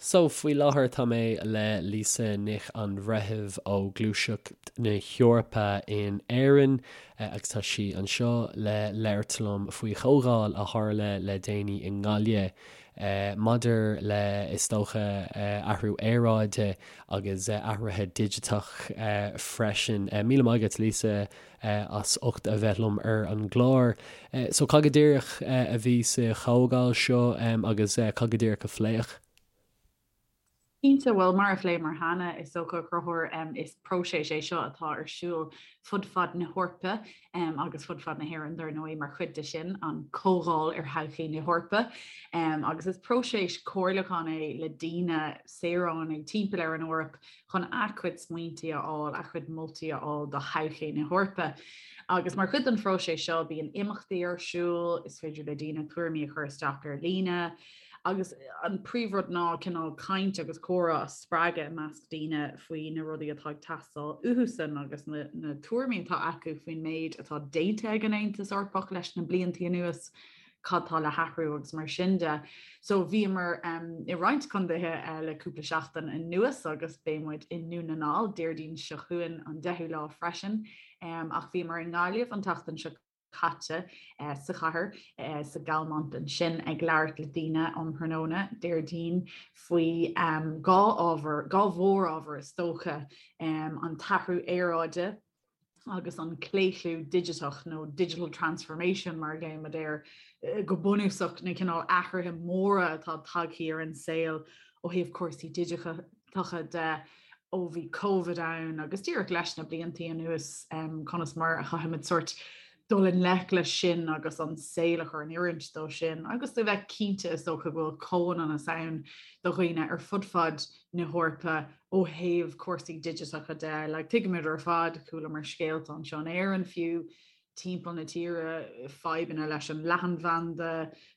So, faoi láthair tá mé le Lisa Nic an Bhreithimh ó Gluaiseacht na hEorpa in Éirinn agus tá sí anseo le labhairt liom faoi chomhdháil a tharla le déanaí i nGaillimh maidir le, is dócha, athrú aeráide agus athruithe digiteach freisin. Míle maith agat, Lisa, as ucht a bheith liom ar an gclár. So cad go díreach a bhí sa chomhdháil seo agus cad go díreach a pléadh? Cinnte, bhuel, mar a phléamar cheana, is dócha, a Chonchúir, is próiseas é seo atá ar siúl fud fad na hEorpa agus fud fad na hÉireann, dar ndóigh, mar chuid de sin, an Comhdháil ar Thodhchaí na hEorpa. Agus is próiseas comhairliúcháin é le daoine, saoránaigh timpeall ar an Eoraip, chun a gcuid smaointe a fháil, a gcuid moltaí a fháil do thodhchaí na hEorpa. Agus mar chuid den phróiseas seo, bíonn imeachtaí ar siúl, is féidir le daoine tuairimí a chur isteach ar líne, agus an príomhrud ná cineál caint agus comhrá a spreagadh i measc daoine faoi na rudaí atá ag teastáil uathusan agus na na tuairimí atá acu faoin méid atá déanta ag an Aontas Eorpach leis na blianta anuas. cad tá le hathrú agus mar sin de. So bhíomar i roinnt contaetha le cúpla seachtain anuas agus beidh muid i nDún na nGall Déardaoin seo chugainn an 10ú lá freisin. Ach bhíomar i nGaillimh an tseachtain seo caite sa chathair sa Galmont ansin ag labhairt le daoine um thráthnóna Déardaoin faoi dhá ábhar, dhá mhórábhar is dócha, an t-athrú aeráide, agus an claochlú digiteach nó digital transformation mar a ghlaoimid air, go bunúsach na cineál athruithe móra atá tagtha ar an saol ó thaobh cúrsaí digiteacha de ó bhí Covid ann agus díreach leis na blianta anuas conas mar a chaithfimid sórt dul i ngleic leis sin agus an saol a chur in oiriúint dó sin agus a bheith cinnte is dócha go bhfuil comhionannas ann do dhaoine ar fud fad na hEorpa ó thaobh cúrsaí digiteacha de. Like, tuigimid ar fad, chualamar scéalta anseo in Éirinn fiú, timpeall na tíre, fadhbanna leis an leathanbhanda,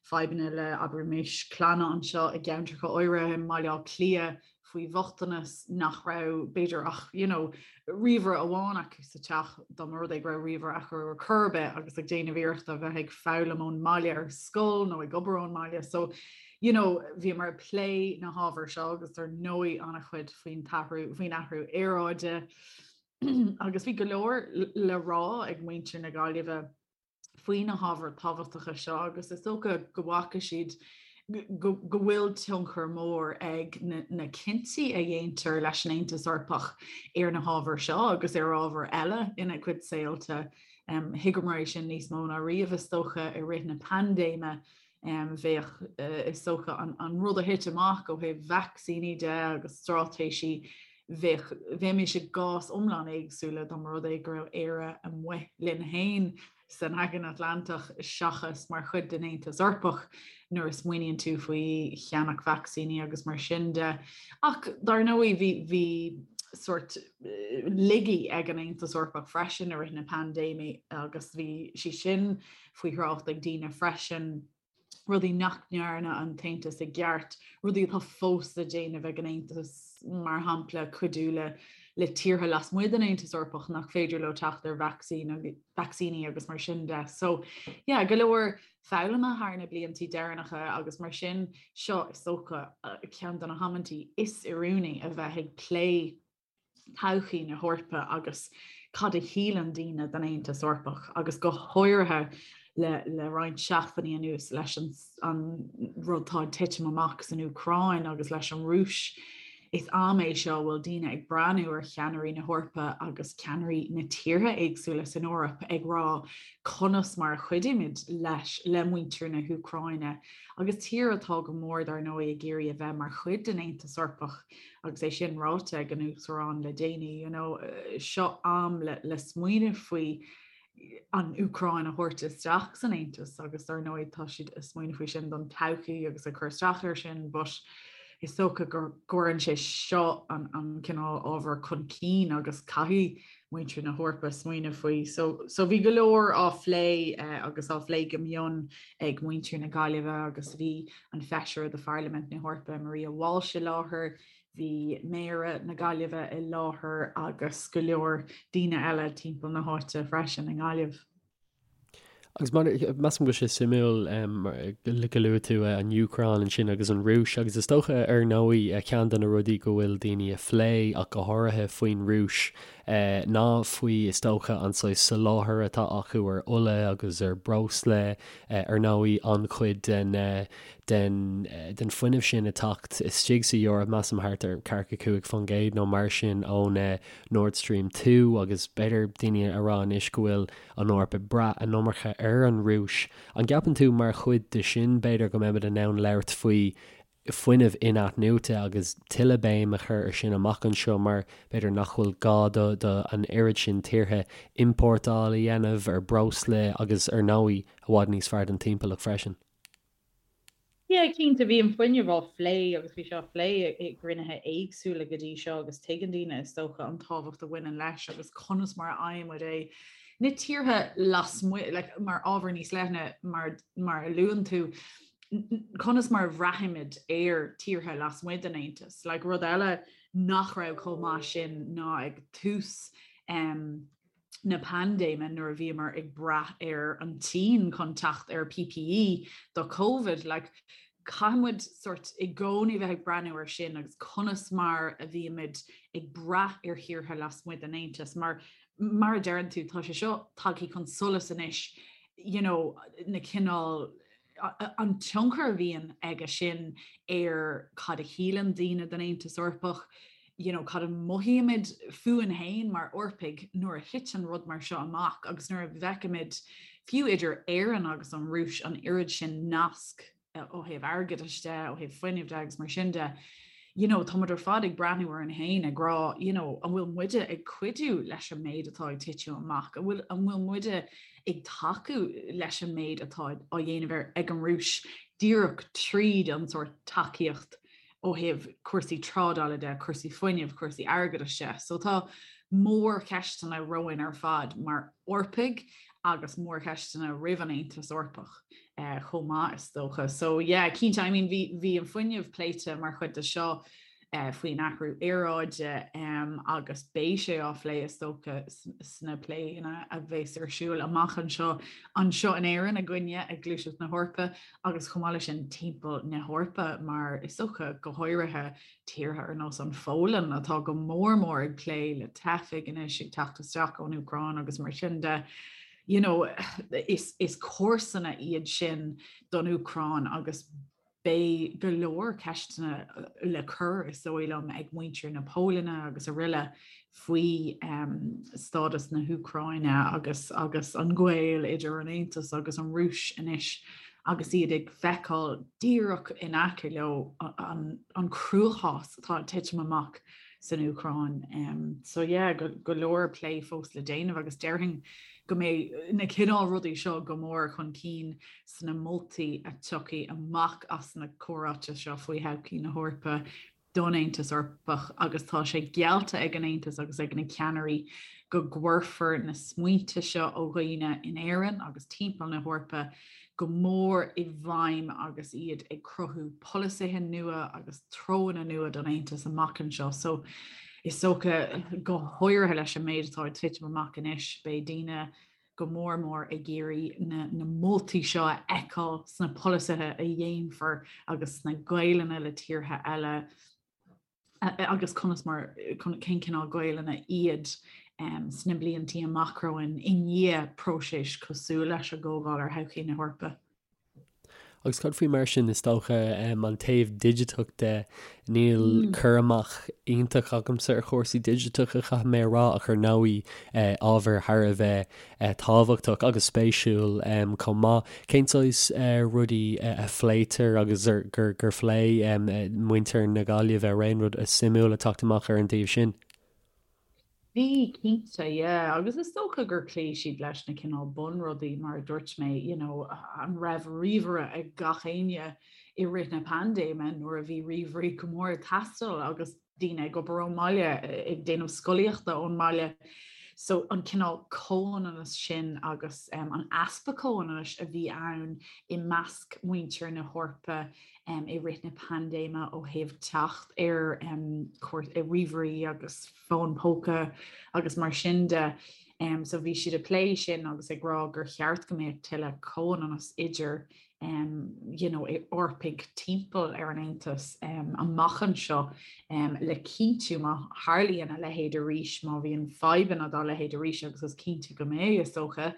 fadhbanna le, abraimis, clanna anseo i gceantracha áirithe i mBaile Átha Cliath faoi bhochtanas nach raibh, b'fhéidir, ach, you know, ríomhaire amháin acu sa teach, dá mba rud é go raibh ríomhaire acu ar chor ar bith agus ag déanamh iarrachta a bheith ag foghlaim ón mbaile ar scoil nó ag obair ón mbaile. So, you know, bhíomar ag plé na hábhair seo agus dar ndóigh an-chuid faoin t-athrú, faoin athrú aeráide agus bhí go leor le rá ag muintir na Gaillimhe faoi na hábhair tábhachtacha seo agus is dócha go bhfaca siad go bhfuil tionchar mór ag na cinntí a dhéantar leis an Aontas Eorpach ar na hábhair seo agus ar ábhair eile ina gcuid saolta. Thuigeamar é sin níos mó ná riamh is dócha i rith na paindéime. Bheadh, is dócha, an rud a thit amach ó thaobh vacsaíní de agus straitéisí, bheadh, bheimis i gcás iomlán éagsúla dá mba rud é go raibh Éire amuigh linn féin san Aigéan Atlantach seachas mar chuid den Aontas Eorpach nuair a smaoiníonn tú faoi cheannach vacsaíní agus mar sin de. Ach dar ndóigh bhí, bhí sórt laigí ag an Aontas Eorpach freisin i rith na paindéime agus bhí sí sin faoi thrácht ag daoine freisin, rudaí nach ndearna an tAontas i gceart, rudaí atá fós le déanamh ag an Aontas, mar shampla cuidiú le le tíortha lasmuigh den Aontas Eorpach nach féidir leo teacht ar vacsaíní agus mar sin de. So yeah, go leor foghlama thar na blianta deireanacha agus mar sin seo is dócha ceann de na hamantaí is oiriúnaí a bheith ag plé todhchaí na hEorpa agus cad a shíleann daoine den Aontas Eorpach agus go háirithe le le roinnt seachtainí anuas leis an an rud atá ag titim amach san Úcráin agus leis an Rúis. Is am é seo a bhfuil daoine ag breathnú ar cheannairí na hEorpa agus ceannairí na tíortha éagsúla san Eoraip ag rá conas mar a chuidímid leis le muintir na hÚcráine agus tír atá go mór dar ndóigh ag iarraidh a bheith mar chuid den Aontas Eorpach Agus é sin ráite ag an Uachtarán le déanaí, you know, seo am le, le smaoineamh faoi an Úcráin a thabhairt isteach san Aontas agus dar ndóigh tá siad ag smaoineamh faoi sin don todhchaí agus ag cur isteach air sin, but is dócha go gcuireann sé seo an, an cineál ábhar chun cinn agus caithfidh muintir na hEorpa smaoineamh faoi. So, so bhí go leor á phlé eh, agus á phlé go mion ag muintir na Gaillimhe agus bhí an Feisire de Pharlaimint na hEorpa Maria Walsh i láthair, bhí Méara na Gaillimhe i láthair agus go leor daoine eile timpeall na háite freisin i nGaillimh. Agus measaim go bhfuil sé suimiúil go luaigh tú an Úcráin ansin agus an Rúis agus is dócha ar ndóigh ceann de na rudaí go bhfuil daoine ag plé ach go háirithe faoin Rúis ná faoi is dócha an saghas soláthair atá acu ar ola agus ar breosla ar ndóigh an-chuid den den den fuinneamh sin ag teacht istigh sa Eoraip measaim thart ar 45% nó mar sin ón Nord Stream 2 agus b'fhéidir daoine a rá anois go bhfuil an Eoraip ag brath an iomarca ar an Rúis. An gceapann tú mar chuid de sin, b'fhéidir, go mbeimid in ann labhairt faoi fuinneamh in-athnuaite agus tuilleadh béim a chur ar sin amach anseo mar b'fhéidir nach bhfuil gá do do an oiread sin tíortha iompórtáil a dhéanamh ar breosla agus ar ndóigh i bhfad níos fearr don timpeallacht freisin? Yeah, cinnte, bhí an fuinneamh á phlé agus bhí sé á phlé i gcruinnithe éagsúla go dtí seo agus tuigeann daoine is dócha an tábhacht a bhaineann leis agus conas mar a fhaigheann muid é. Na tíortha lasmuigh, like, mar ábhar níos leithne mar, mar a luann tú, conas mar a bhraithimid ar tíortha lasmuigh den Aontas. Like, rud eile nach raibh chomh maith sin ná ag tús um, na paindéime nuair a bhíomar ag brath ar an tSín chun teacht ar PPE do Covid, like, caithfidh muid sort i gcónaí bheith ag breathnú ar sin agus conas mar a bhímid ag brath ar thíortha lasmuigh den Aontas mar mar a deireann tú tá sé seo tagtha chun solais anois you know, na cineál an tionchar a bhíonn aige sin ar cad a shíleann daoine den Aontas Eorpach, you know, cad a mothaímid fúinn féin mar Eorpaigh nuair a thiteann rud mar seo amach agus nuair a bhfeicimid fiú idir Éirinn agus an Rúis an oiread sin nasc ó thaobh airgeadais de, ó thaobh fuinnimh de agus mar sin de. You know, tá muid ar fad ag breathnú orainn féin ag rá, you know, an bhfuil muide ag cuidiú leis an méid atá ag titim amach, an bhfuil, an bhfuil muide ag tacú leis an méid atá á dhéanamh ag an Rúis díreach tríd an sórt tacaíocht ó thaobh cúrsaí trádála de, cúrsaí fuinnimh, cúrsaí airgeadais de. So tá mórcheisteanna romhainn ar fad mar Eorpaigh agus mórcheisteanna roimh an Aontas Eorpach eh, chomh maith is dócha. So yeah, cinnte, I mean, bhí, bhí an fuinneamh pléite mar chuid de seo faoin athrú aeráide agus beidh sé á phlé is dócha sna pléanna a bheas ar siúl amach anseo anseo in Éirinn againne ag Gluaiseacht na hEorpa agus chomh maith leis sin timpeall na hEorpa mar is dócha go háirithe tíortha ar nós an Pholainn atá go mór mór ag plé le teifigh anois ag teacht isteach ón Úcráin agus mar sin de. You know, is, is comharsana iad sin don Úcráin agus Beidh go leor ceisteanna le cur, is dóigh liom, ag muintir na Polainne agus araile faoi stádas na hÚcráine agus agus an gaol idir an Aontas agus an Rúis anois agus iad ag feiceáil díreach in aice leo an an cruachás atá ag titim amach san Úcráin. So yeah, go leor plé fós le déanamh agus déarfainn go mbeidh na cineál rudaí seo go mór chun cinn sna moltaí a tiocfaidh amach as na comhráite seo faoi thodhchaí na hEorpa don Aontas Eorpach agus tá sé geallta ag an Aontas agus ag na ceannairí go gcuirfear na smaointe seo ó dhaoine in Éirinn agus timpeall na hEorpa go mór i bhfeidhm agus iad ag cruthú polasaithe nua agus treonna nua don Aontas amach anseo. So is dócha go háirithe leis an méid atá ag titim amach anois, beidh daoine go mór mór ag iarraidh na na moltaí seo a fheiceáil sna polasaithe a dhéanfar agus sna gaolanna le tíortha eile agus conas mar cén cineál gaolanna iad sna bliantaí amach romhainn i ndiaidh próiseas cosúil leis an gComhdháil ar Thodhchaí na hEorpa. Agus cad faoi mar sin, is dócha, an taobh digiteach de, níl cur amach iontach agamsa ar chúrsaí digiteacha, caithfidh mé a rá, ach ar ndóigh ábhar thar a bheith tábhachtach agus spéisiúil chomh maith. Cén saghas rudaí a phléitear agus gur phléigh muintir na Gaillimhe, an raibh aon rud suimiúil ag teacht amach ar an taobh sin? Bhí, cinnte, yeah. Agus is dócha gur chloígh siad leis na cineál bunrudaí, mar a dúirt mé, you know, an raibh ríomhaire ag gach éinne i rith na paindéime nuair a bhí ríomhairí go mór ag teastáil agus daoine ag obair ón mbaile, ag déanamh scolaíochta ón mbaile. So an cineál comhionannas sin agus um, an easpa comhionannais a bhí ann i measc muintir na hEorpa um, i rith na paindéime ó thaobh teacht ar um, ríomhairí agus fóin póca agus mar sin de. So bhí siad ag plé sin agus ag rá gur cheart go mbeadh tuilleadh comhionannas idir you know, Eorpaigh timpeall ar an Aontas amach anseo le cinntiú má tharlaíonn a leithéid arís, má bhíonn fadhbanna dá leithéid arís agus is cinnte go mbeidh, is dócha,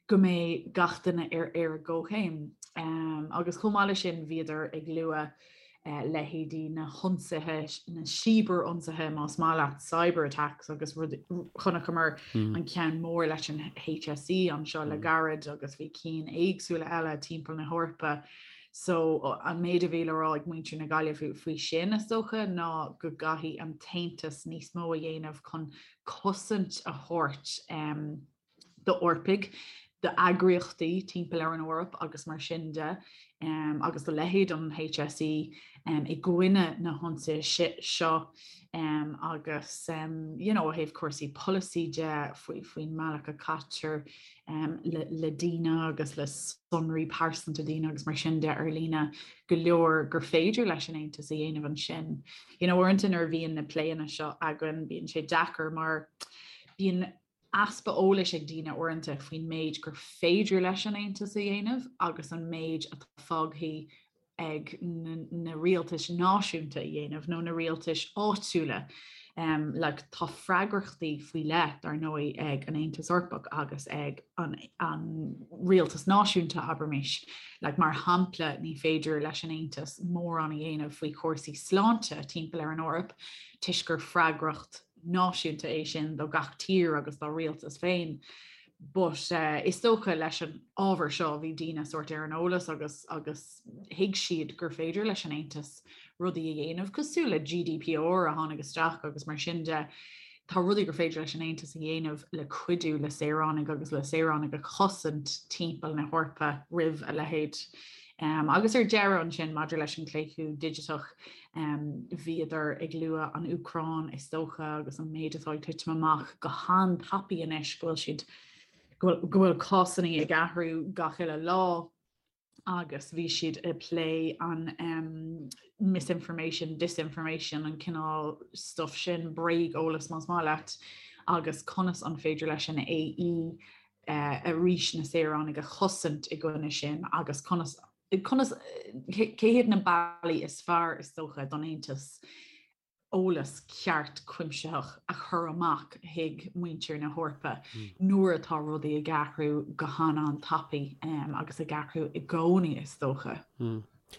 go mbeidh gach duine ar ar an gcomhchéim. Agus chomh maith leis sin bhíodar ag lua leithéidí na hionsaithe, na cibear-ionsaithe más maith leat, cyber attacks agus rud, chonaiceamar an ceann mór leis an HSE anseo le gairid agus bhí cinn éagsúla eile timpeall na hEorpa. So an méid a bhí le rá ag muintir na Gaillimhe faoi sin is dócha ná go gcaithfidh an tAontas níos mó a dhéanamh chun cosaint a thabhairt d'Eorpaigh, d'eagraíochtaí timpeall ar an Eoraip agus mar sin de, agus do leithéid an HSE i gcoinne na hionsaithe seo agus you know, ó thaobh cúrsaí polasaí de faoi faoin mbealach a caitear le, le daoine agus le sonraí pearsanta daoine agus mar sin de ar líne go leor gur féidir leis an Aontas a dhéanamh ansin. You know, uaireanta nuair a bhíonn na pléanna seo againn bíonn sé deacair mar bíonn easpa eolais ag daoine uaireanta faoin méid gur féidir leis an Aontas a dhéanamh agus an méid atá fágtha ag na rialtais náisiúnta a dhéanamh nó na rialtais áitiúla. Um, like, tá freagrachtaí faoi leith dar ndóigh ag an Aontas Eorpach agus ag an, an rialtas náisiúnta abraimis. Like, mar shampla ní féidir leis an Aontas mórán a dhéanamh faoi chúrsaí sláinte timpeall ar an Eoraip toisc gur freagracht náisiúnta é sin do gach tír agus dá rialtas féin. But uh, is dócha leis an ábhar seo bhí daoine sórt ar an eolas agus agus thuig siad gur féidir leis an Aontas rudaí a dhéanamh cosúil le GDPR a tháinig isteach agus mar sin de tá rudaí gur féidir leis an Aontas a dhéanamh le cuidiú le saoránaigh agus le saoránaigh a chosaint timpeall na hEorpa roimh a leithéid. Um, agus ar deireadh ansin maidir leis an claochlú digiteach Bhíodar ag lua an Úcráin is dócha agus an méid atá ag titim amach go han-tapaidh anois go bhfuil siad go bhfuil cásanna ag athrú gach uile lá agus bhí siad ag plé an um, misinformation, disinformation, an cineál stuff sin, bréag-eolas más maith leat, agus conas an féidir leis an AE uh, arís na saoránaigh a chosaint i gcoinne sin agus conas Conas, cé hiad na bealaí is fearr is dócha don Aontas eolas ceart cuimsitheach a chur amach chuig muintir na hEorpa nuair atá rudaí ag athrú go han-an-tapaidh agus ag athrú i gcónaí is dócha.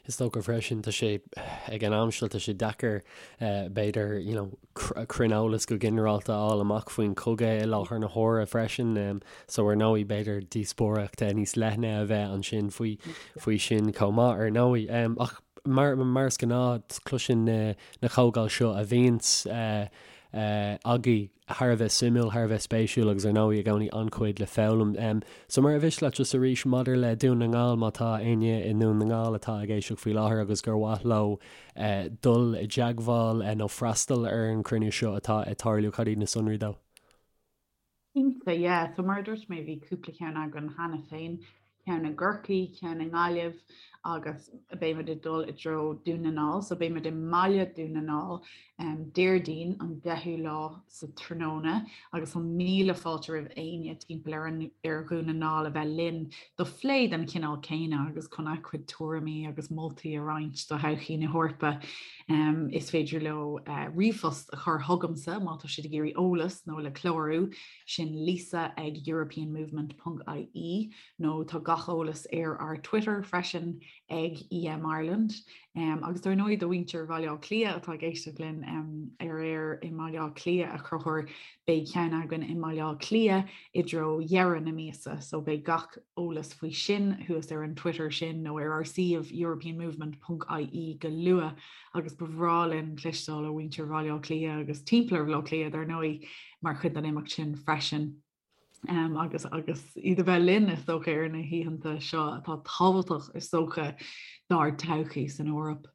Is dócha freisin, tá sé, ag an am seo, tá sé deacair b'fhéidir, you know, cruinneolas go ginearálta a fháil amach faoin chogadh i láthair na huaire freisin. So ar ndóigh b'fhéidir díospóireacht níos leithne a bheith ansin faoi faoi sin chomh maith ar ndóigh. Ach mar mar is gnáth cloiseann na na comhdháil seo a bhíonns agaibh thar a bheith suimiúil, thar a bheith spéisiúil agus ar ndóigh i gcónaí an-chuid le foghlaim. So mar ar mhiste leat just arís maidir le Dún na nGall má tá éinne i nDún na nGall atá ag éisteacht faoi láthair agus gur mhaith leo dul i dteagmháil nó freastal ar an chruinniú seo atá ag tarlú, cad iad na sonraí dó? Cinnte, yeah. So mar a dúirt mé bhí cúpla ceann againn cheana féin, ceann i gCorcaigh, ceann i nGaillimh agus beimid ag dul i dtreo Dún na nGall. So beimid i mbaile Dún na nGall um, Déardaoin an 10ú lá sa tráthnóna agus tá míle fáilte roimh éinne timpeall ar an ar Dhún na nGall a bheith linn do phlé den chineál céanna agus chun a gcuid tuairimí agus moltaí a roinnt do thodhchaí na hEorpa. Um, is féidir leo uh, ríomhphost a chur chugamsa má tá siad ag iarraidh eolas nó le clárú sin lisa ag europeanmovement.ie nó tá gach eolas ar ár Twitter freisin ag EM Ireland. Um, agus dar ndóigh do mhuintir Bhaile Átha Cliath atá ag éisteacht linn um, ar aer i mBaile Átha Cliath a Chonchúir beidh ceann againn i mBaile Átha Cliath i dtreo dheireadh na míosa, so beidh gach eolas faoi sin thuas ar an Twitter sin nó ar ár suíomh europeanmovement.ie go luath agus ba bhreá linn cloisteáil ó mhuintir Bhaile Átha Cliath agus timpeall ar Bhaile Átha Cliath dar ndóigh mar chuid den imeacht sin freisin. Um, agus agus iad a bheith linn is dócha ar na hoícheanta seo atá tábhachtach is dócha dár todhchaí san Eoraip.